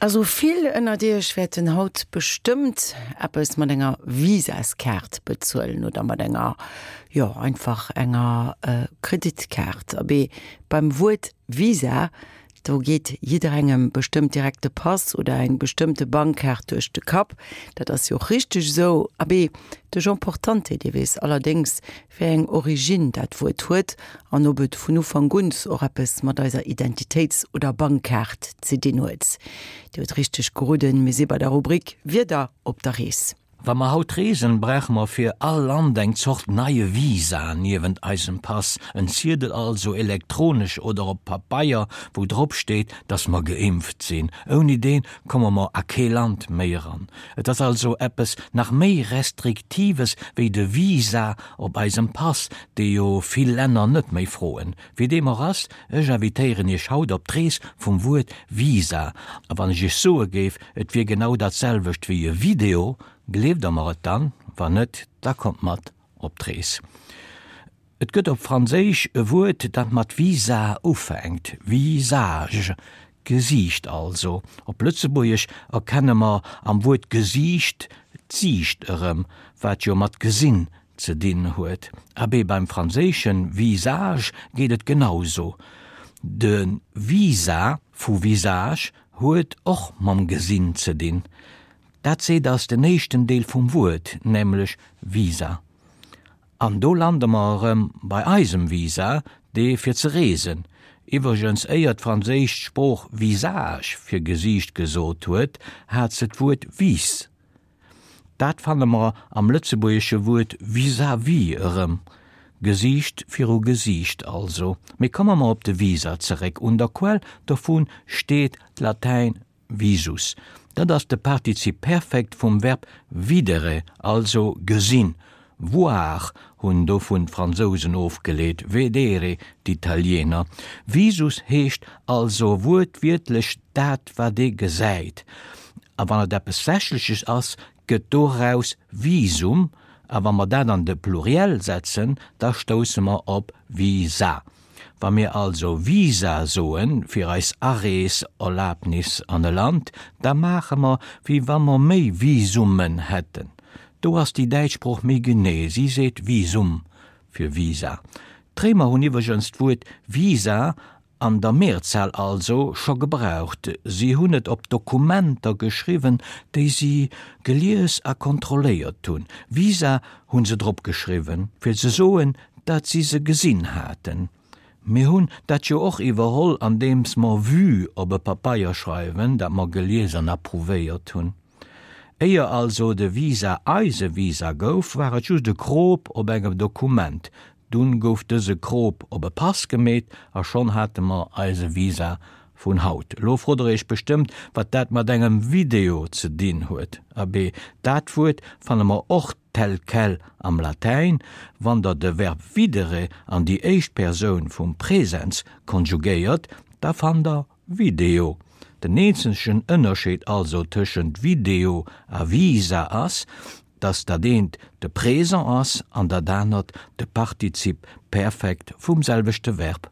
Also vill ënnert iech wäerten haut bestëmmt eppes mat enger Visaskaart bezuelen oder mat enger, jo einfach enger Kreditkaart. Abee, beim Wuert Visa, do geet jidderengem bestëmmt direkt de Pass oder eng bestëmmte Bankkaart duerch de Kapp. Dat ass jo och richteg esou. Abee, de Jean Portante, dee weess allerdéngs, wéi eng Origine dat Wuert huet an ob et vun Ufank un och eppes mat eiser Identitéits oder Bankkaart ze dinn huet. Dir hutt richteg geroden, mir si bei der Rubrik Wieder op der Rees. Wa mer haut reesen, brauche mer fir all Land eng Zort neie Visa niewent eisem Pass, en Ziedel also, elektronesch oder op Pabeier, wou drop steet, dass mer geimpft sinn. Ouni deen komme mer a kee Land méi eran. Et ass also eppes nach méi Restriktives wéi de Visa op eisem Pass, dee jo vill Länner net méi froen. Wéi deem och ass, ech invitéieren Iech haut op d'Rees vum Wuert Visa. A wann ech Iech soe géif, et wier genau dat selwecht wéi e Video, gleeft Der mer et dann? Wann net, da kommt mat op d'Rees. Et gëtt op Franséisch e Wuert, dat mat visa ufänkt, visage, Gesiicht also. Op Lëtzebuergesch erkenne mer am Wuert Gesiicht d'Siicht erëm, wat jo mat gesinn ze dinn huet. Abee, beim franséische visage geet et genauso. De Visa vu visage huet och mam Gesinn ze dinn. Dat seet ass den éischten Deel vum Wuert, nämlech visa. An do lande mer erëm bei eisem Visa, dee fir ze reesen. Iwwregens, éier d'franséisch Sprooch visage fir Gesiicht gesot huet, hat se d'Wuert vis. Dat fanne mer am lëtzebuergesche Wuert vis-à-vis erëm, Gesiicht viru Gesiicht also. Mee komme mer op de Visa zeréck. Un der Quell dovu steet d'Latäin Visus, dat ass de Partizip Perfekt vum Verb videre, also gesinn. Voir hunn dovun d'Fransousen ofgeleet, vedere d'Italiener. Visus heescht also wuertwiertlech dat wat ee gesäit. A wann et eppes Sächleches ass, gëtt doraus Visum, a wa mer dat an de Pluriel setzen, da stousse mer op Visa. Wa mir also Visa soen fir eis Areeserlabnis an e Land, da maache mer, wéi wa mer méi Visummen hätten. Do ass déi däitsch Sprooch méi genee, si seet Visum fir Visa. D'Réimer hunn iwwregens d'Wuert Visa an der Mehrzahl also scho gebraucht, si hunn et op Dokumenter geschriwwen, déi si gelies a kontrolléiert hunn. Visa hu se drop geschriwwen, fir ze soen, dat si se gesinn haten. Mir hunn dat jo och iwwerholl, andeems mer Vue op e Papeier schreiwen, dat mer gelies an approuvéiert hunn. Éier also de Visa eise Visa gouf, war et just e Krop op engem Dokument. Dunn gouf dëse Krop op e Pass gemeet a schonn hate mer eise Visa vun haut. Elo frot der iech bestëmmt, wat dat mat engem Video ze dinn huet. Abee, dat Wuert fanne mer och tel quel am Latäin, wann der de Verb videre an déi éischt Persoun vum Präsens konjugéiert, da fannt der video. Den eenzegen Ënnerscheed also tëschent Video a Visa ass, dass dat eent de Présent ass an dat anert de Partizip Perfekt vum selwechte Verb.